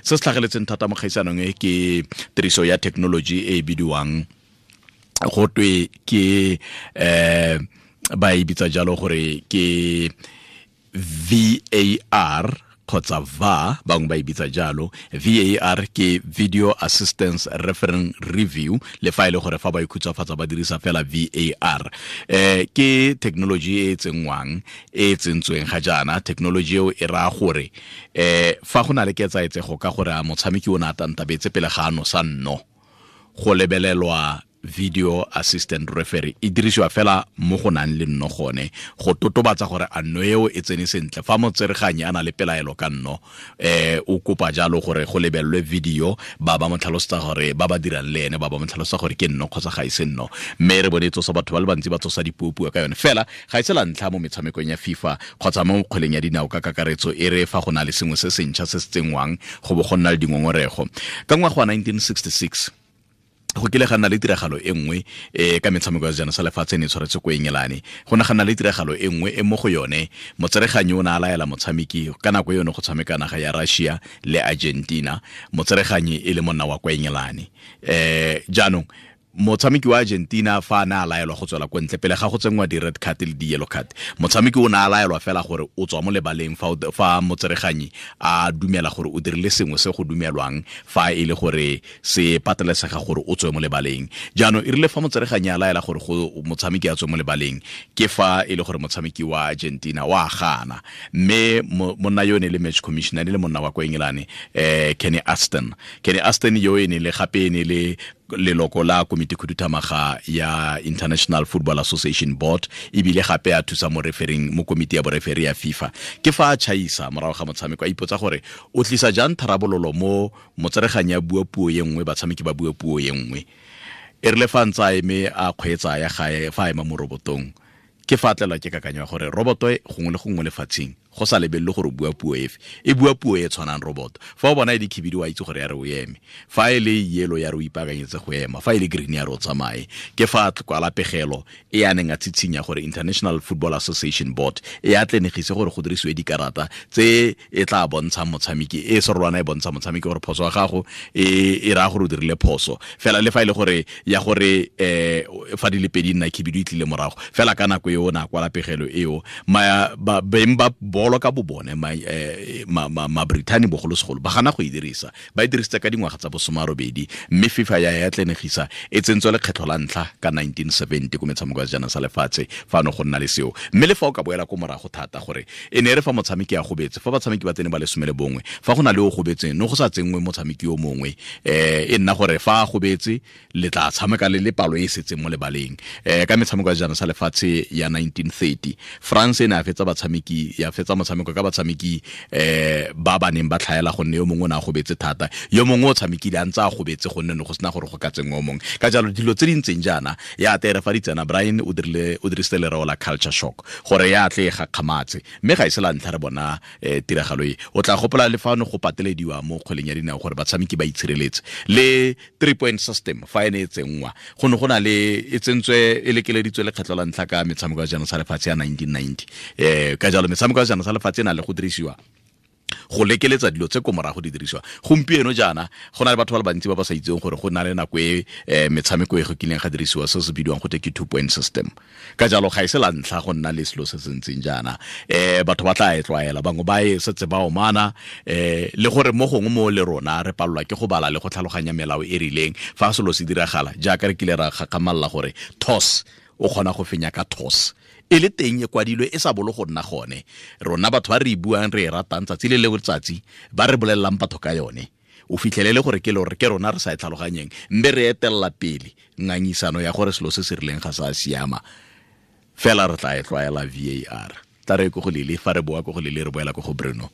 Se se tlhageletseng thata mo kgaisanong e ke tiriso ya technology e e bidiwang go twe ke ba e bitsa jalo gore ke VAR kgotsa VAR, bangwe ba e bitsa jalo. VAR ke Video Assistance Reference Review, le fa e le gore fa ba ikhutsafatsa ba dirisa fela VAR. Ke technology e e tsenngwang, e e tsentsweng ga jaana. Technology eo e raya gore fa go na le ketsaetsego ka gore a motshameki o ne a tantabetse pele ga a nosa nno, go lebelelwa video assistant referee. E dirisiwa fela mo go nang le nno gone go totobatsa gore a nno eo e tsene sentle. Fa motsereganyi a na le pelaelo ka nno, o kopa jalo gore go lebelelwe video, ba ba mo tlhalosetsa gore ba ba dirang le ene ba ba mo tlhalosetsa gore ke nno kgotsa ga e se nno. Mme re bone e tsosa batho ba le bantsi ba tsosa dipuopuo ka yone. Fela ga e se la ntlha mo metshamekong ya FIFA kgotsa mo kgweleng ya dinao ka kakaretso e re fa go na le sengwe se sentšha se se tsenngwang go bo go nna le dingongorego. Ka ngwaga wa 1966 go kile ga nna le tiragalo e nngwe ka metshameko ya sejana sa lefatshe e ne e tshwaretse ko Engelane. Go ne ga nna le tiragalo e nngwe e mo go yone motsereganyi o ne a laela motshameki ka nako yone go tshameka naga ya Russia le Argentina, motsereganyi e le monna wa kwa Engelane. Jaanong motshameki wa Argentina fa a ne a laelwa go tswela ko ntle pele ga go tsenngwa di-red card le di-yellow card, motshameki o ne a laelwa fela gore o tswa mo lebaleng fa motsereganyi a dumela gore o dirile sengwe se go dumelwang fa e le gore se patelesega gore o tswe mo lebaleng. Jaanong e rile fa motsereganyi a laela gore go motshameki a tswe mo lebaleng, ke fa e le gore motshameki wa Argentina wa gana, mme monna yo ne le match commissioner, ne le monna wa kwa Engelane, Kenny Aston. Kenny Aston yo e ne le gape e ne le leloko la komiti khuduthamaga ya International Football Association Board, ebile gape a thusa mo refereng mo komiti ya boreferi ya FIFA. Ke fa a chaisa morago ga motshameko, a ipotsa gore o tlisa jang tharabololo mo motsereganyi a bua puo e nngwe, batshameki ba bua puo e nngwe. E rile fa ntse a eme a kgweetsa ya gae, fa a ema mo robotong, ke fa a tlelwa ke kakanyo ya gore roboto e gongwe le gongwe lefatsheng go sa lebelele gore o bua puo efe, e bua puo e tshwanang roboto. Fa o bona e le khibidu wa itse gore ya re o eme, fa e le yellow ya re o ipaakanyetse go ema, fa e le green ya re o tsamaye. Ke fa a kwala pegelo e a neng a tshitshinya gore International Football Association Board e atlenegise gore go dirisiwe dikarata tse e tla bontshang motshameki, e serolwana e bontsha motshameki gore phoso ya gago e raya gore o dirile phoso fela, le fa e le gore ya gore fa di le pedi nna khibidu e tlile morago fela. Ka nako eo na kwala pegelo eo, beng ba bolo ka bobone, ma Brithani bogolosegolo ba gana go e dirisa. Ba e dirisitse ka dingwaga tsa bosomarobedi, mme FIFA ya atlenegisa e tsentswe lekgetlho la ntlha ka 1970 ko metshameko ya sejana sa lefatshe fa no go nna le seo. Mme le fa o ka boela ko morago thata, gore e ne e re fa motshameki a gobetse, fa batshameki ba tsene ba le 11, fa go na le o gobetseng, no go sa tsenngwe motshameki yo mongwe, e nna gore fa a gobetse le tla tshameka le le palo e e setseng mo lebaleng. Ka metshameko ya sejana sa lefatshe ya 1930, France e ne ya fetsa batshameki, ya fetsa motshameko ka batshameki ba ba neng ba tlhaela, gonne yo mongwe o ne a gobetse thata, yo mongwe o tshamekile a ntse a gobetse, gonne ne go sena gore go ka tsenngwa o mongwe. Ka jalo dilo tse di ntseng jaana ya tere fa di tsena, Brian o dirile, o dirisitse lereo la culture shock gore ya tle e gakgamatse, mme ga e se la ntlha re bona tiragalo e. O tla gopola le fa ne go patelediwa mo kgweleng ya dinao gore batshameki ba itshireletse, le 3 point system fa e ne e tsenngwa, go ne go na le e tsentswe e lekeleditswe lekgetlho la ntlha ka metshameko ya sejana sa lefatshe ya 1990. Ka jalo metshameko ya sejana sa lefatshe e na le go dirisiwa go lekeletsa dilo tse ko morago di dirisiwa gompieno jaana. Go na le batho ba le bantsi ba ba sa itseng gore go na le nako e metshameko e go kileng ga dirisiwa se se bidiwang go te ke 2 point system. Ka jalo ga e se la ntlha go nna le selo se se ntseng jaana. Batho ba tla e tlwaela, bangwe ba e setse ba omana, le gore mo gongwe mo le rona re palelwa ke go bala le go tlhaloganya melao e rileng fa selo se diragala, jaaka re kile ra gakgamalla gore toss o kgona go fenya ka toss e le teng e kwadilwe e sa bolo go nna gone. Rona batho ba re e buang, re e ratang tsatsi le le letsatsi, ba re bolelelang batho ka yone, o fitlhelele gore ke lore ke rona re sa e tlhaloganyeng, mme re etelela pele ngangisano ya gore selo se se rileng ga sa siama. Fela re tla e tlwaela VAR. Tla re ko go lele, fa re boa ko go lele re boela ko go Bruno.